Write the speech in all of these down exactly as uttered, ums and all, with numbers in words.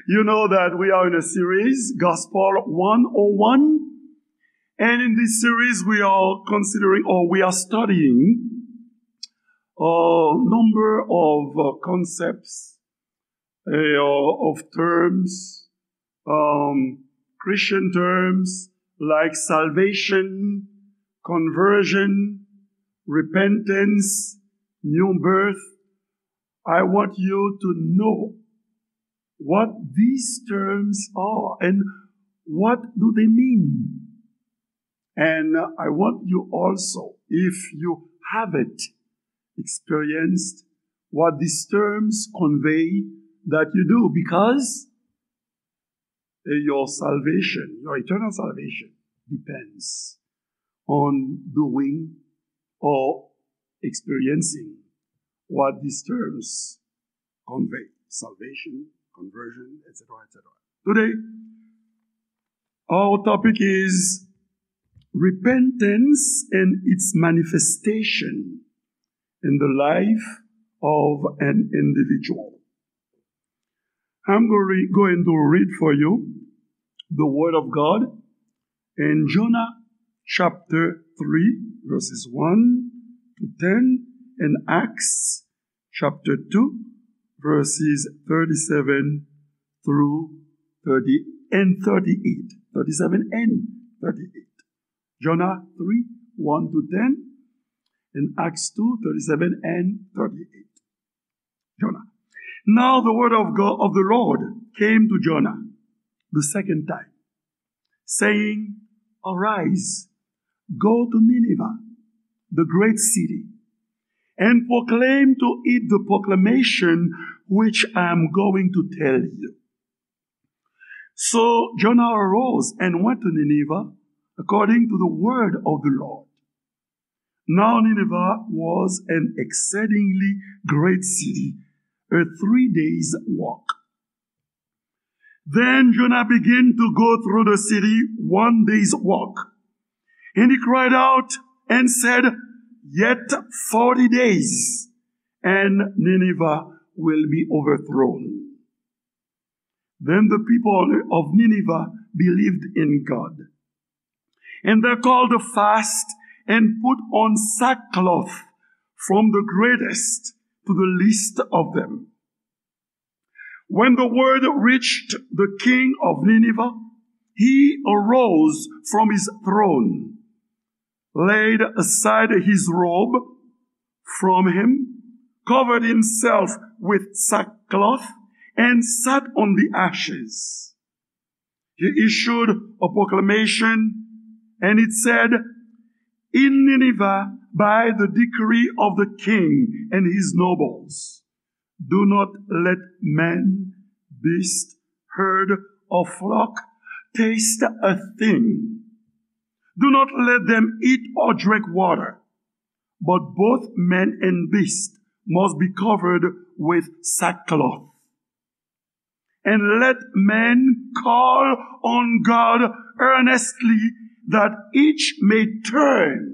You know that we are in a series, Gospel one oh one. And in this series, we are considering or we are studying a number of uh, concepts, uh, of terms, um, Christian terms like salvation, conversion, repentance, new birth. I want you to know what these terms are and what do they mean. And I want you also, if you haven't experienced what these terms convey, that you do, because uh, your salvation, your eternal salvation, depends on doing or experiencing what these terms convey: salvation, conversion, et cetera, et cetera. Today, our topic is repentance and its manifestation in the life of an individual. I'm going to read for you the Word of God in Jonah chapter three, verses one to ten, and Acts chapter two, verses thirty-seven through thirty and thirty-eight. Thirty-seven and thirty-eight. Jonah three, one to ten, and Acts two, thirty-seven and thirty-eight. Jonah. Now the word of God, of the Lord, came to Jonah the second time, saying, "Arise, go to Nineveh, the great city, and proclaim to it the proclamation which I am going to tell you." So Jonah arose and went to Nineveh according to the word of the Lord. Now Nineveh was an exceedingly great city, a three days' walk. Then Jonah began to go through the city one day's walk. And he cried out and said, "Yet forty days, and Nineveh will be overthrown." Then the people of Nineveh believed in God. And they called a fast and put on sackcloth from the greatest to the least of them. When the word reached the king of Nineveh, he arose from his throne, laid aside his robe from him, covered himself with sackcloth, and sat on the ashes. He issued a proclamation, and it said, "In Nineveh, by the decree of the king and his nobles, do not let man, beast, herd, or flock taste a thing. Do not let them eat or drink water, but both man and beast must be covered with sackcloth. And let man call on God earnestly, that each may turn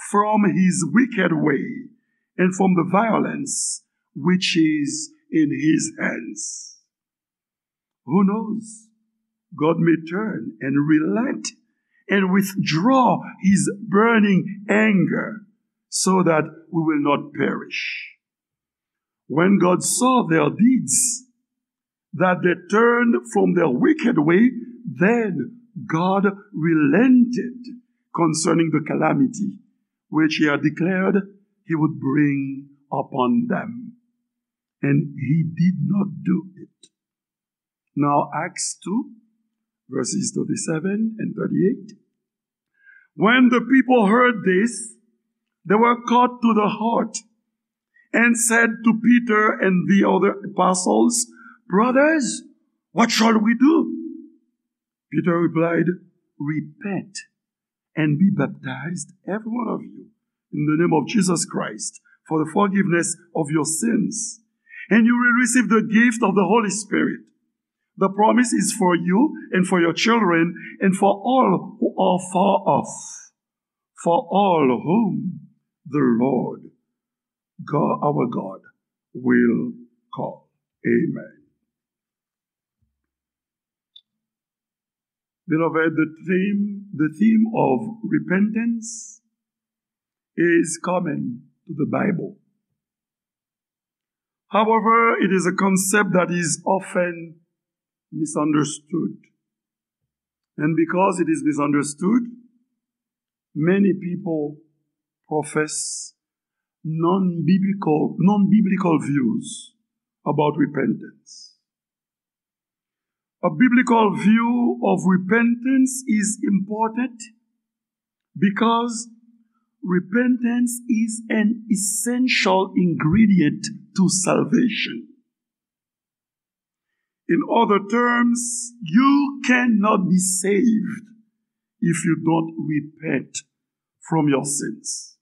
from his wicked way and from the violence which is in his hands." Who knows? God may turn and relent and withdraw his burning anger so that we will not perish. When God saw their deeds, that they turned from their wicked way, then God relented concerning the calamity which he had declared he would bring upon them. And he did not do it. Now, Acts two, verses thirty-seven and thirty-eight. When the people heard this, they were cut to the heart and said to Peter and the other apostles, "Brothers, what shall we do?" Peter replied, "Repent and be baptized, every one of you, in the name of Jesus Christ, for the forgiveness of your sins. And you will receive the gift of the Holy Spirit. The promise is for you and for your children and for all who are far off, for all whom the Lord God, our God, will call." Amen. Beloved, the theme, the theme of repentance is common to the Bible. However, it is a concept that is often misunderstood. And because it is misunderstood, many people profess non-biblical, non-biblical views about repentance. A biblical view of repentance is important because repentance is an essential ingredient to salvation. In other terms, you cannot be saved if you don't repent from your sins.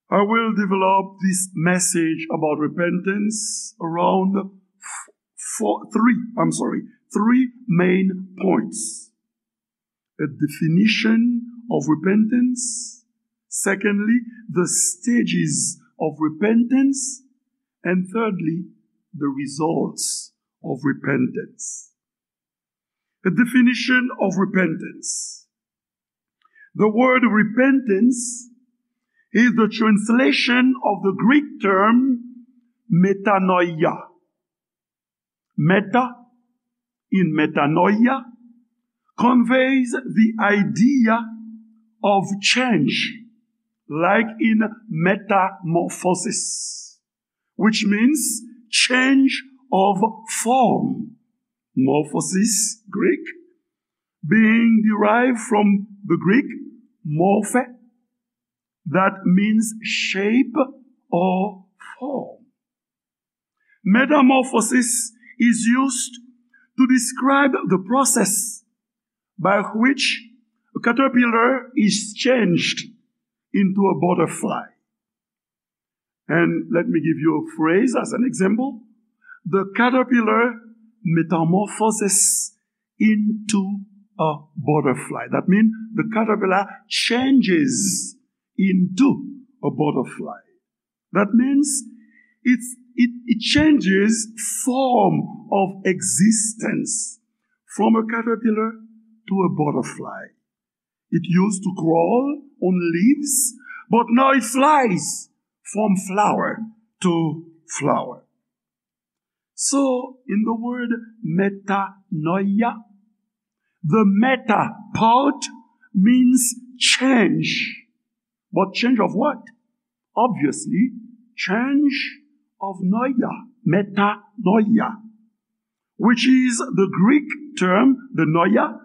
I will develop this message about repentance around f- four, three, I'm sorry, three main points. A definition of repentance. Secondly, the stages of repentance. And thirdly, the results of repentance. A definition of repentance. The word repentance is the translation of the Greek term metanoia. Meta in metanoia conveys the idea of change, like in metamorphosis, which means change of form. Morphosis, Greek, being derived from the Greek morphe, that means shape or form. Metamorphosis is used to describe the process by which a caterpillar is changed into a butterfly. And let me give you a phrase as an example. The caterpillar metamorphoses into a butterfly. That means the caterpillar changes into a butterfly. That means it's, it, it changes form of existence from a caterpillar to a butterfly. It used to crawl on leaves, but now it flies from flower to flower. So, in the word metanoia, the meta part means change. But change of what? Obviously, change of noia, metanoia, which is the Greek term, the noia,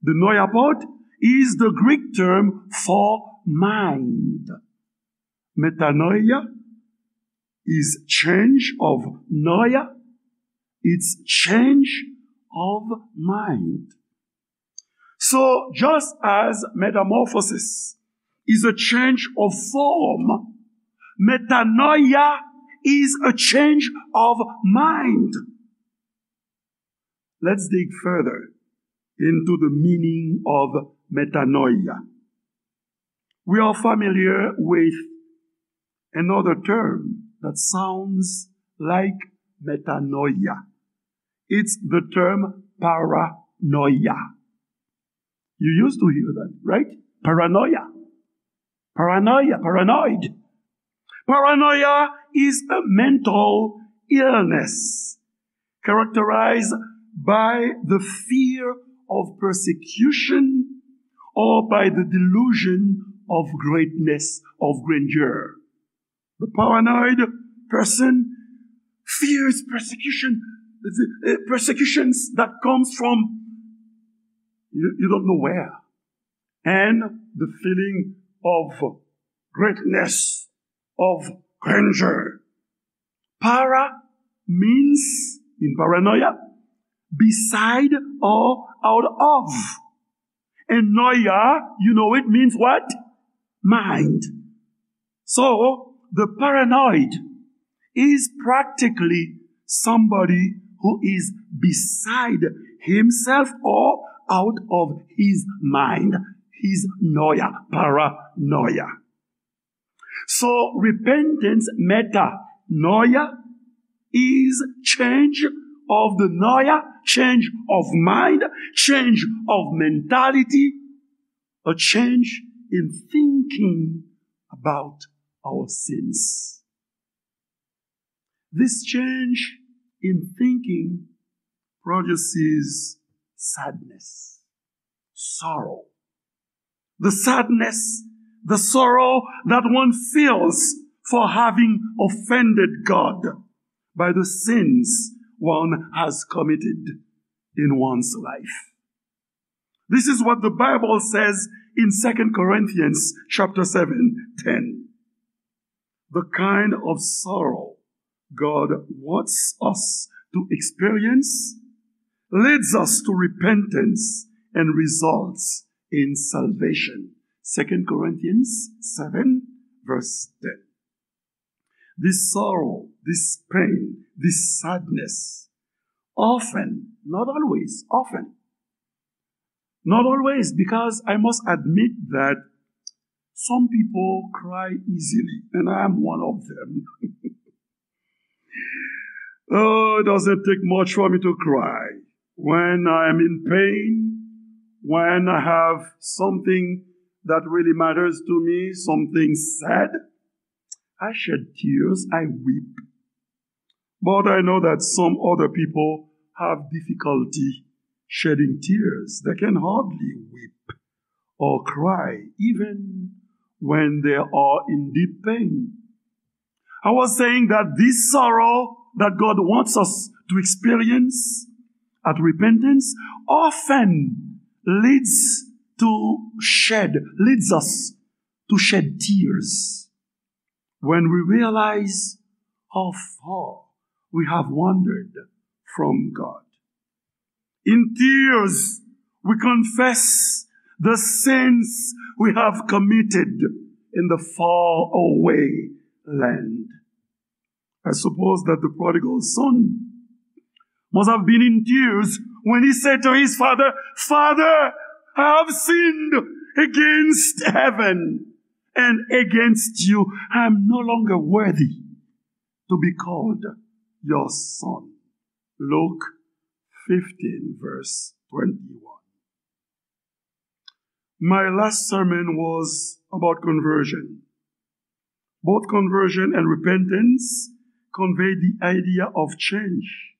the noia part is the Greek term for mind. Metanoia is change of noia, it's change of mind. So, just as metamorphosis is a change of form, metanoia is a change of mind. Let's dig further into the meaning of metanoia. We are familiar with another term that sounds like metanoia. It's the term paranoia. You used to hear that, right? Paranoia. Paranoia, paranoid. Paranoia is a mental illness characterized by the fear of persecution or by the delusion of greatness, of grandeur. The paranoid person fears persecution, the, uh, persecutions that comes from you, you don't know where, and the feeling of greatness, of grandeur. Para means, in paranoia, beside or out of. And noia, you know it means what? Mind. So, the paranoid is practically somebody who is beside himself or out of his mind, his noia, paranoia. So, repentance, metanoia, is change of the noia, change of mind, change of mentality, a change in thinking about our sins. This change in thinking produces sadness, sorrow. The sadness, the sorrow that one feels for having offended God by the sins one has committed in one's life. This is what the Bible says in Second Corinthians chapter seven, ten. The kind of sorrow God wants us to experience leads us to repentance and results in salvation. Second Corinthians seven, verse ten. This sorrow, this pain, this sadness, often, not always, often, not always, because I must admit that some people cry easily, and I am one of them. Oh, it doesn't take much for me to cry. When I am in pain, when I have something that really matters to me, something sad, I shed tears, I weep. But I know that some other people have difficulty shedding tears. They can hardly weep or cry, even when they are in deep pain. I was saying that this sorrow that God wants us to experience at repentance often leads to shed, leads us to shed tears when we realize how far we have wandered from God. In tears, we confess the sins we have committed in the far away land. I suppose that the prodigal son must have been in tears when he said to his father, "Father, I have sinned against heaven and against you. I am no longer worthy to be called your son." Luke fifteen, verse twenty-one. My last sermon was about conversion. Both conversion and repentance convey the idea of change.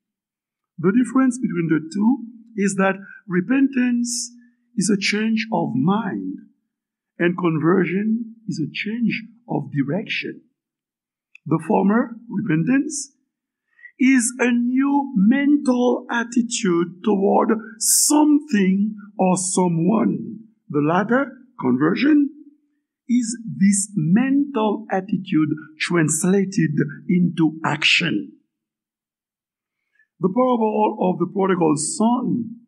The difference between the two is that repentance is a change of mind, and conversion is a change of direction. The former, repentance, is a new mental attitude toward something or someone. The latter, conversion, is this mental attitude translated into action. The parable of the prodigal son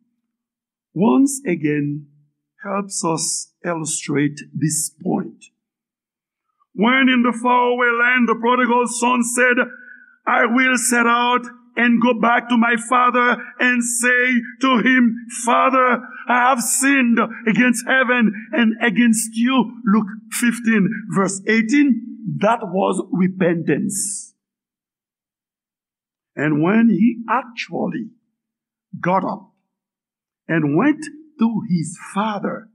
once again helps us illustrate this point. When in the faraway land the prodigal son said, "I will set out and go back to my father and say to him, 'Father, I have sinned against heaven and against you.'" Luke fifteen, verse eighteen. That was repentance. And when he actually got up and went to his father,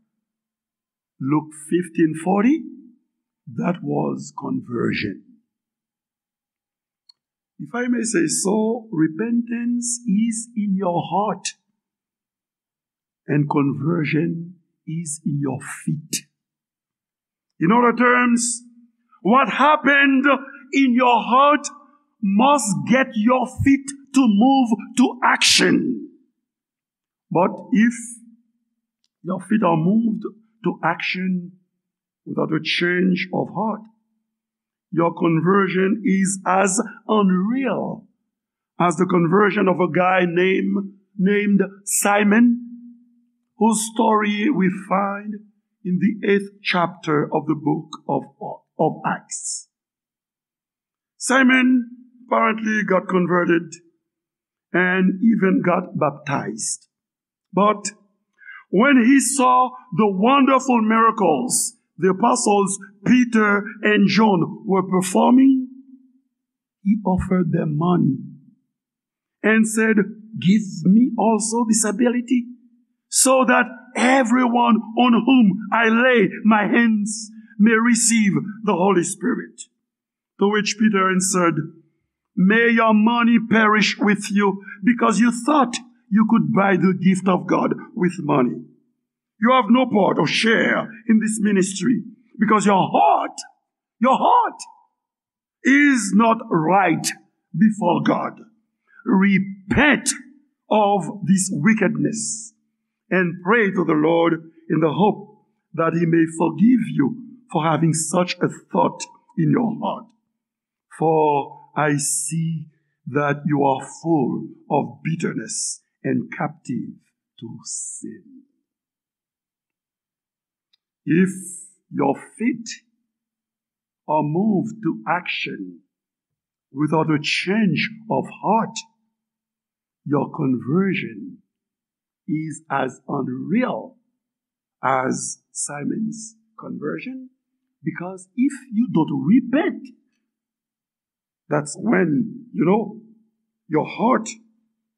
Luke fifteen forty, that was conversion. If I may say so, repentance is in your heart and conversion is in your feet. In other terms, what happened in your heart must get your feet to move to action. But if your feet are moved to action without a change of heart, your conversion is as unreal as the conversion of a guy named, named Simon, whose story we find in the eighth chapter of the book of, of Acts. Simon apparently got converted and even got baptized. But when he saw the wonderful miracles the apostles Peter and John were performing, he offered them money and said, Give me also this ability, so that everyone on whom I lay my hands may receive the Holy Spirit. To which Peter answered, "May your money perish with you, because you thought you could buy the gift of God with money. You have no part or share in this ministry, because your heart, your heart is not right before God. Repent of this wickedness and pray to the Lord in the hope that he may forgive you for having such a thought in your heart. For I see that you are full of bitterness and captive to sin." If your feet are moved to action without a change of heart, your conversion is as unreal as Simon's conversion, because if you don't repent, that's when, you know, your heart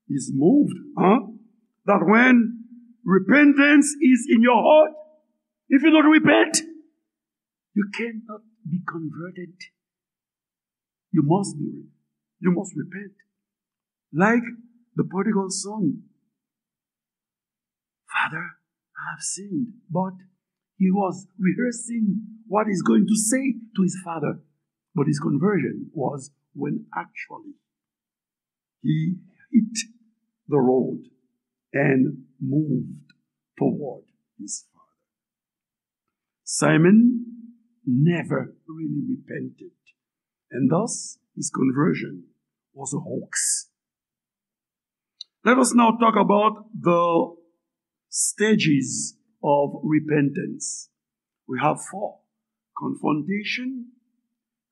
is moved, huh? That when repentance is in your heart, if you don't repent, you cannot be converted. You must be, you must repent. Like the prodigal son, "Father, I have sinned." But he was rehearsing what he's going to say to his father. But his conversion was when actually he hit the road and moved toward his father. Simon never really repented, and thus his conversion was a hoax. Let us now talk about the stages of repentance. We have four: confrontation,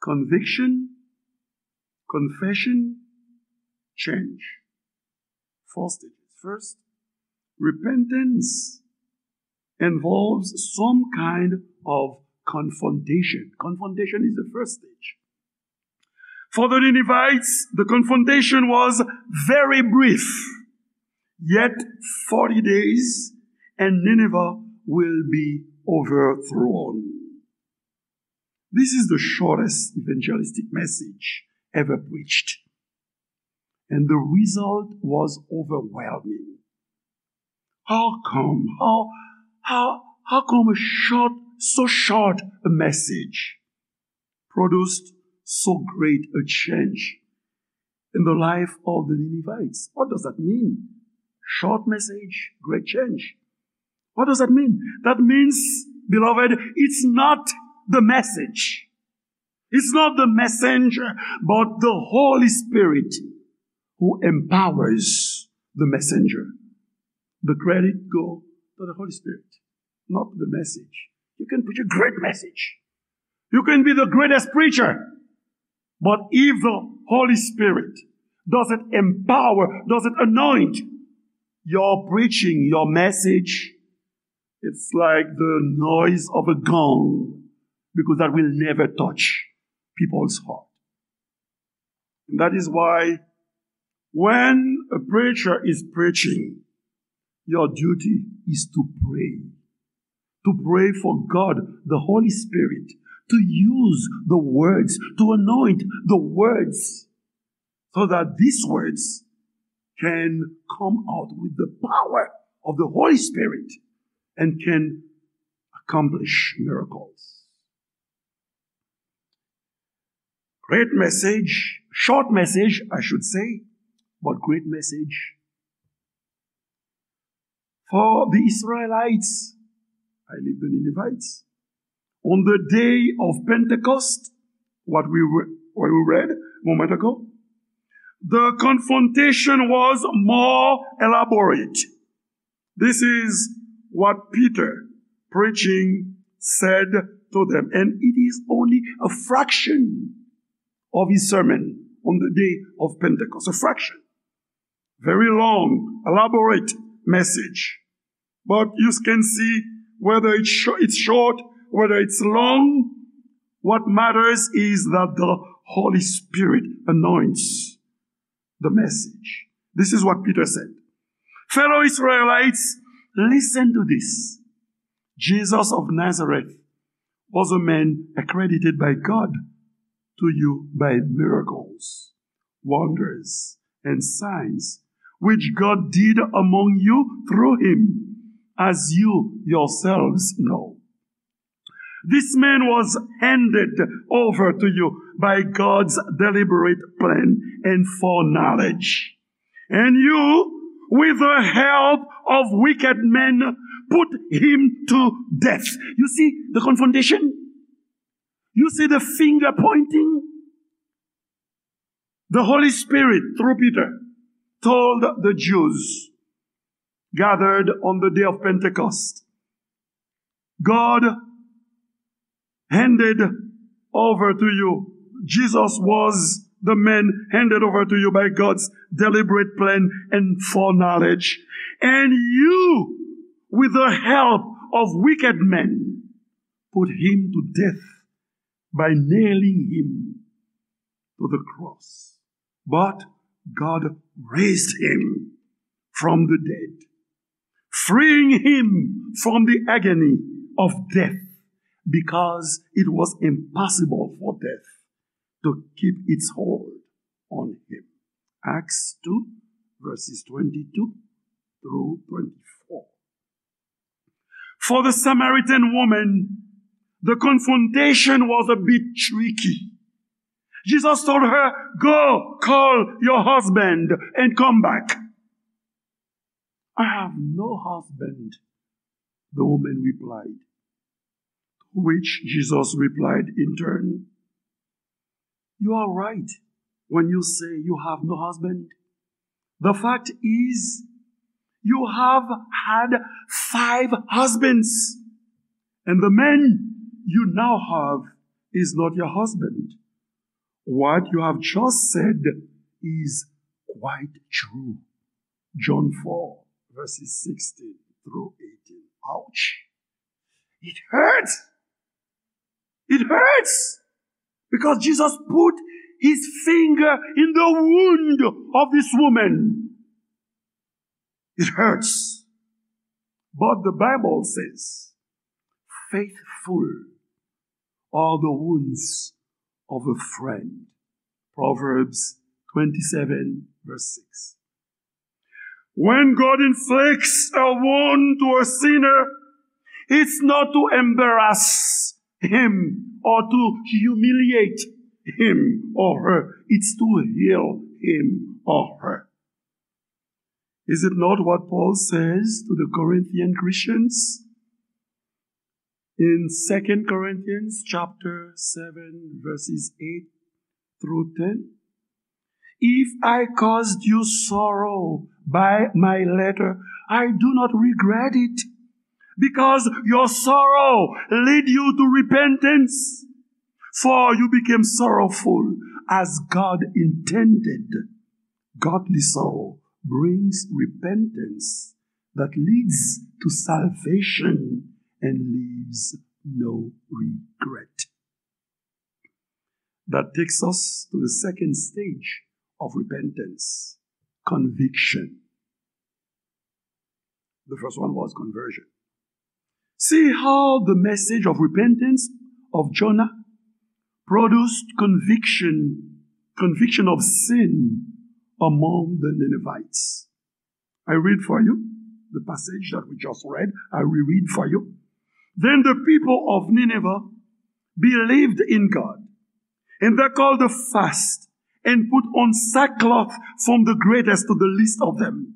conviction, confession, change. Four stages. First, repentance involves some kind of confrontation. Confrontation is the first stage. For the Ninevites, the confrontation was very brief. Yet forty days and Nineveh will be overthrown. This is the shortest evangelistic message ever preached. And the result was overwhelming. How come? How, how, how come a short, so short a message produced so great a change in the life of the Ninevites? What does that mean? Short message, great change. What does that mean? That means, beloved, it's not the message. It's not the messenger, but the Holy Spirit who empowers the messenger. The credit go to the Holy Spirit, not the message. You can preach a great message. You can be the greatest preacher. But if the Holy Spirit doesn't empower, doesn't anoint your preaching, your message, it's like the noise of a gong, because that will never touch people's heart. And that is why when a preacher is preaching, your duty is to pray. To pray for God, the Holy Spirit, to use the words, to anoint the words, so that these words can come out with the power of the Holy Spirit and can accomplish miracles. Great message, short message, I should say, but great message. For the Israelites, I leave the Ninevites, on the day of Pentecost, what we, re- what we read a moment ago, the confrontation was more elaborate. This is what Peter, preaching, said to them. And it is only a fraction of his sermon on the day of Pentecost. A fraction. Very long, elaborate message. But you can see whether it's, sh- it's short, whether it's long, what matters is that the Holy Spirit anoints the message. This is what Peter said. Fellow Israelites, listen to this. Jesus of Nazareth was a man accredited by God to you by miracles, wonders, and signs, which God did among you through him, as you yourselves know. This man was handed over to you by God's deliberate plan and foreknowledge. And you, with the help of wicked men, put him to death. You see the confrontation? You see the finger pointing? The Holy Spirit, through Peter, told the Jews gathered on the day of Pentecost, God handed over to you. Jesus was the man handed over to you by God's deliberate plan and foreknowledge. And you, with the help of wicked men, put him to death by nailing him to the cross. But God raised him from the dead, freeing him from the agony of death, because it was impossible for death to keep its hold on him. Acts two, verses twenty-two through twenty-four. For the Samaritan woman, the confrontation was a bit tricky. Jesus told her, "Go, call your husband and come back." "I have no husband," the woman replied. To which Jesus replied in turn, "You are right when you say you have no husband. The fact is, you have had five husbands, and the man you now have is not your husband. What you have just said is quite true." John four, verses sixteen through eighteen. Ouch! It hurts! It hurts! Because Jesus put his finger in the wound of this woman. It hurts. But the Bible says, "Faithful are the wounds of a friend." Proverbs twenty-seven, verse six. When God inflicts a wound to a sinner, it's not to embarrass him or to humiliate him or her. It's to heal him or her. Is it not what Paul says to the Corinthian Christians? In Second Corinthians chapter seven, verses eight through ten, "If I caused you sorrow by my letter, I do not regret it, because your sorrow lead you to repentance, for you became sorrowful as God intended." Godly sorrow brings repentance that leads to salvation and leaves no regret. That takes us to the second stage of repentance, conviction. The first one was conversion. See how the message of repentance of Jonah produced conviction, conviction of sin among the Ninevites. I read for you the passage that we just read. I will read for you. Then the people of Nineveh believed in God, and they called a fast and put on sackcloth from the greatest to the least of them.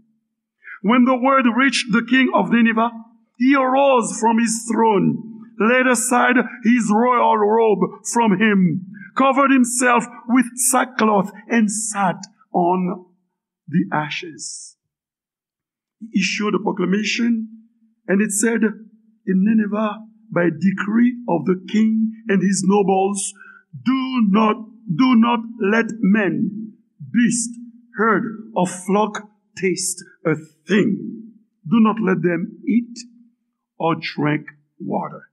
When the word reached the king of Nineveh, he arose from his throne, laid aside his royal robe from him, covered himself with sackcloth, and sat on the ashes. He issued a proclamation, and it said in Nineveh, by decree of the king and his nobles, "Do not, do not let men, beast, herd, or flock taste a thing. Do not let them eat or drink water."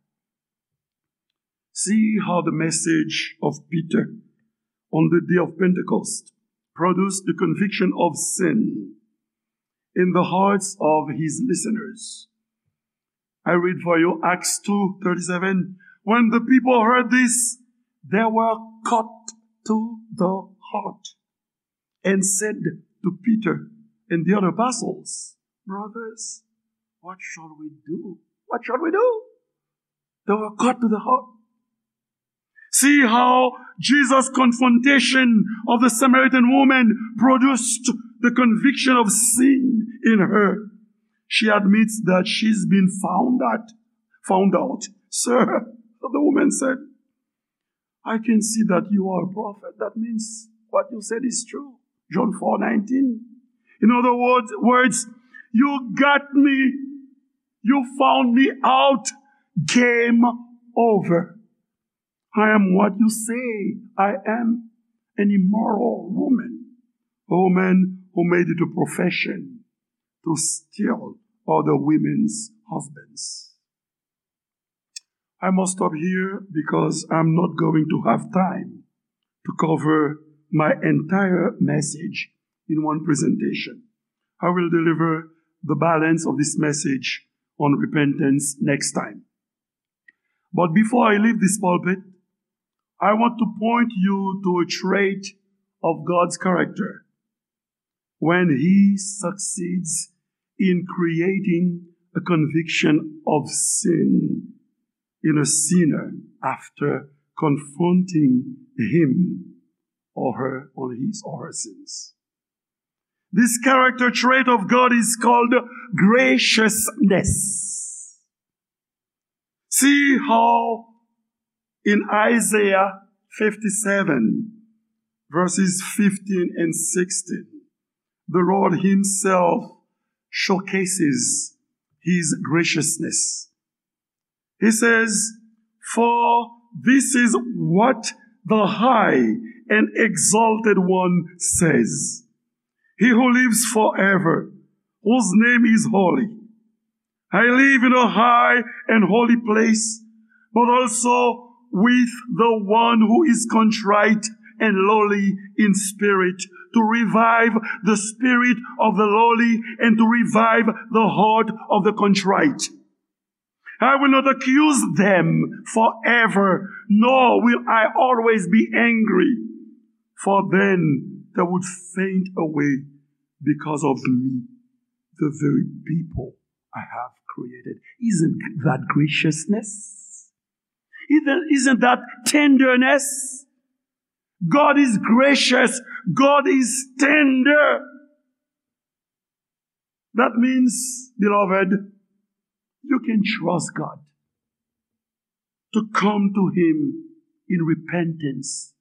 See how the message of Peter on the day of Pentecost produced the conviction of sin in the hearts of his listeners. I read for you Acts two thirty-seven. When the people heard this, they were cut to the heart and said to Peter and the other apostles, "Brothers, what shall we do? What shall we do?" They were cut to the heart. See how Jesus' confrontation of the Samaritan woman produced the conviction of sin in her. She admits that she's been found out. Found out. "Sir," the woman said, "I can see that you are a prophet. That means what you said is true." John four nineteen. In other words, words, "You got me. You found me out. Game over. I am what you say I am, an immoral woman, a woman who made it a profession to steal other women's husbands." I must stop here because I'm not going to have time to cover my entire message in one presentation. I will deliver the balance of this message on repentance next time. But before I leave this pulpit, I want to point you to a trait of God's character when he succeeds in creating a conviction of sin in a sinner after confronting him or her on his or her sins. This character trait of God is called graciousness. See how in Isaiah fifty-seven, verses fifteen and sixteen, the Lord himself showcases his graciousness. He says, "For this is what the high and exalted one says, he who lives forever, whose name is holy. I live in a high and holy place, but also with the one who is contrite and lowly in spirit, to revive the spirit of the lowly and to revive the heart of the contrite. I will not accuse them forever, nor will I always be angry, for then they would faint away because of me, the very people I have created." Isn't that graciousness? Isn't, isn't that tenderness? God is gracious. God is tender. That means, beloved, you can trust God to come to him in repentance.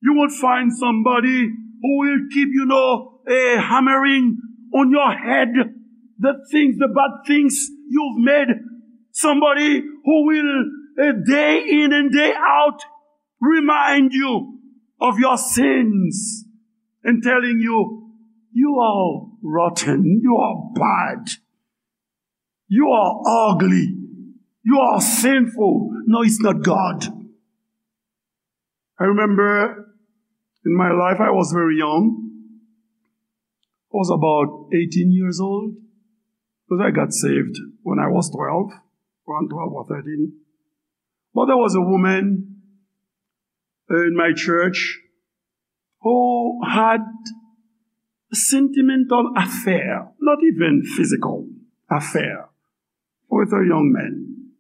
You won't find somebody who will keep, you know, eh, hammering on your head the things, the bad things you've made. Somebody who will, eh, day in and day out, remind you of your sins and telling you, "You are rotten, you are bad, you are ugly, you are sinful." No, it's not God. I remember in my life, I was very young. I was about eighteen years old because I got saved when I was twelve, around twelve or thirteen. But there was a woman in my church who had sentimental affair, not even physical affair, with a young man.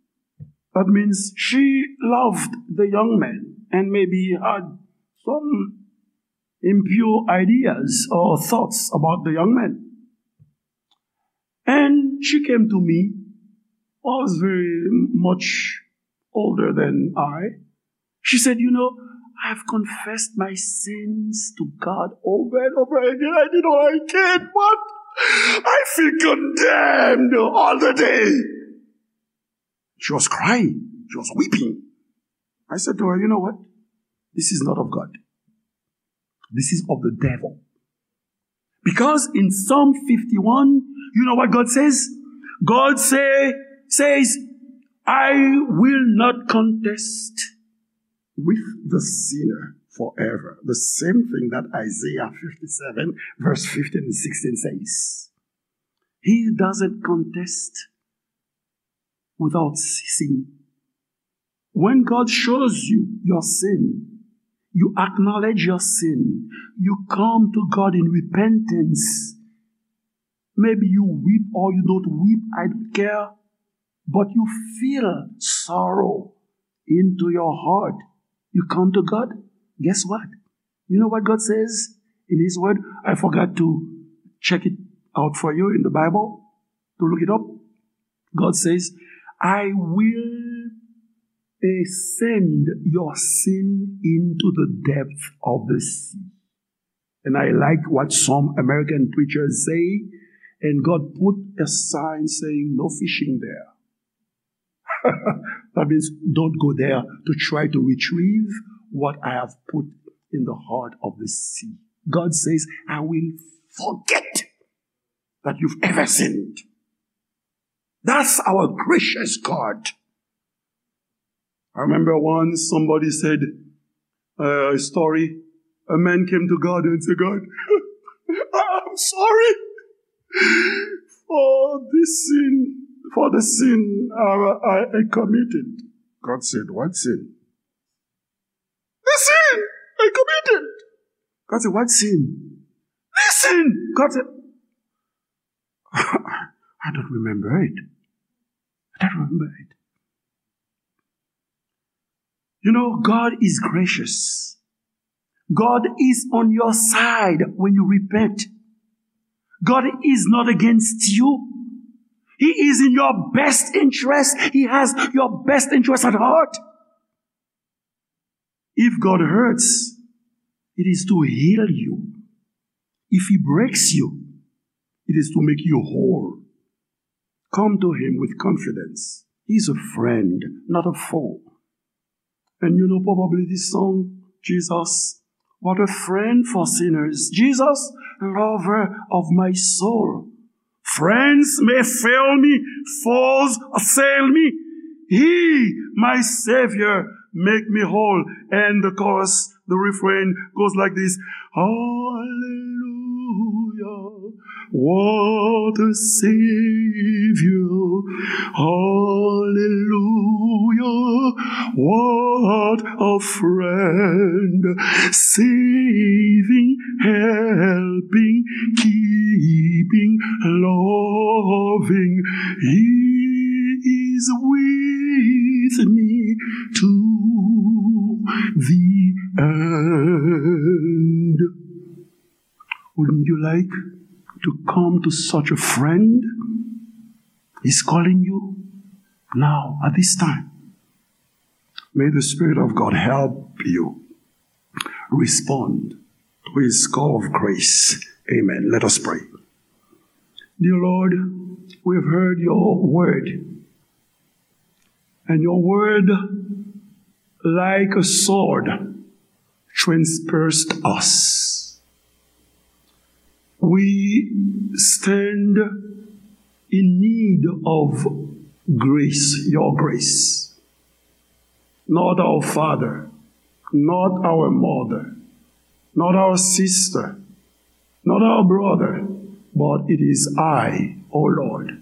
That means she loved the young man and maybe had some impure ideas or thoughts about the young man. And she came to me, was very much older than I. She said, "You know, I've confessed my sins to God over and over again. I did all I can, but I feel condemned all the day." She was crying. She was weeping. I said to her, "You know what? This is not of God. This is of the devil." Because in Psalm fifty-one, you know what God says? God say, says, "I will not contest with the sinner forever. The same thing that Isaiah fifty-seven, verse fifteen and sixteen says. He doesn't contest without ceasing. When God shows you your sin, you acknowledge your sin, you come to God in repentance. Maybe you weep or you don't weep, I don't care, but you feel sorrow into your heart. You come to God. Guess what? You know what God says in His Word? I forgot to check it out for you in the Bible, to look it up. God says, I will, eh, send your sin into the depth of the sea. And I like what some American preachers say, and God put a sign saying, no fishing there. That means don't go there to try to retrieve what I have put in the heart of the sea. God says, I will forget that you've ever sinned. That's our gracious God. I remember once somebody said, uh, a story. A man came to God and said, God, I'm sorry for this sin, for the sin I, I, I committed. God said, what sin? The sin I committed. God said, what sin? This sin. God said, I don't remember it. I don't remember it. You know, God is gracious. God is on your side when you repent. God is not against you. He is in your best interest. He has your best interest at heart. If God hurts, it is to heal you. If He breaks you, it is to make you whole. Come to Him with confidence. He's a friend, not a foe. And you know probably this song, Jesus, what a friend for sinners. Jesus, lover of my soul. Friends may fail me, foes assail me. He, my Savior, make me whole. And the chorus, the refrain goes like this. Hallelujah, what a Savior. Hallelujah, what a friend. Saving, helping, keeping, loving. He is with me to the end. Wouldn't you like to come to such a friend? He's calling you now, at this time. May the Spirit of God help you respond to His call of grace. Amen. Let us pray. Dear Lord, we've heard your word, and your word, like a sword, transpierced us. We stand in need of grace, your grace. Not our father, not our mother, not our sister, not our brother, but it is I, O Lord,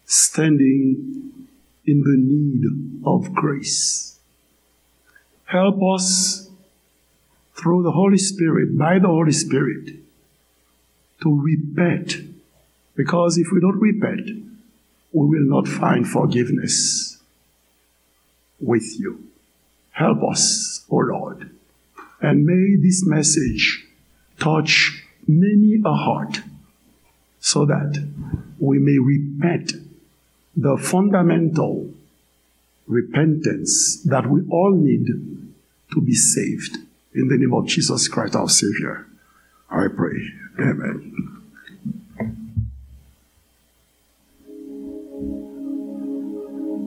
standing in the need of grace. Help us through the Holy Spirit, by the Holy Spirit, to repent. Because if we don't repent, we will not find forgiveness with you. Help us, O Lord. And may this message touch many a heart so that we may repent, the fundamental repentance that we all need to be saved. In the name of Jesus Christ, our Savior, I pray. Amen.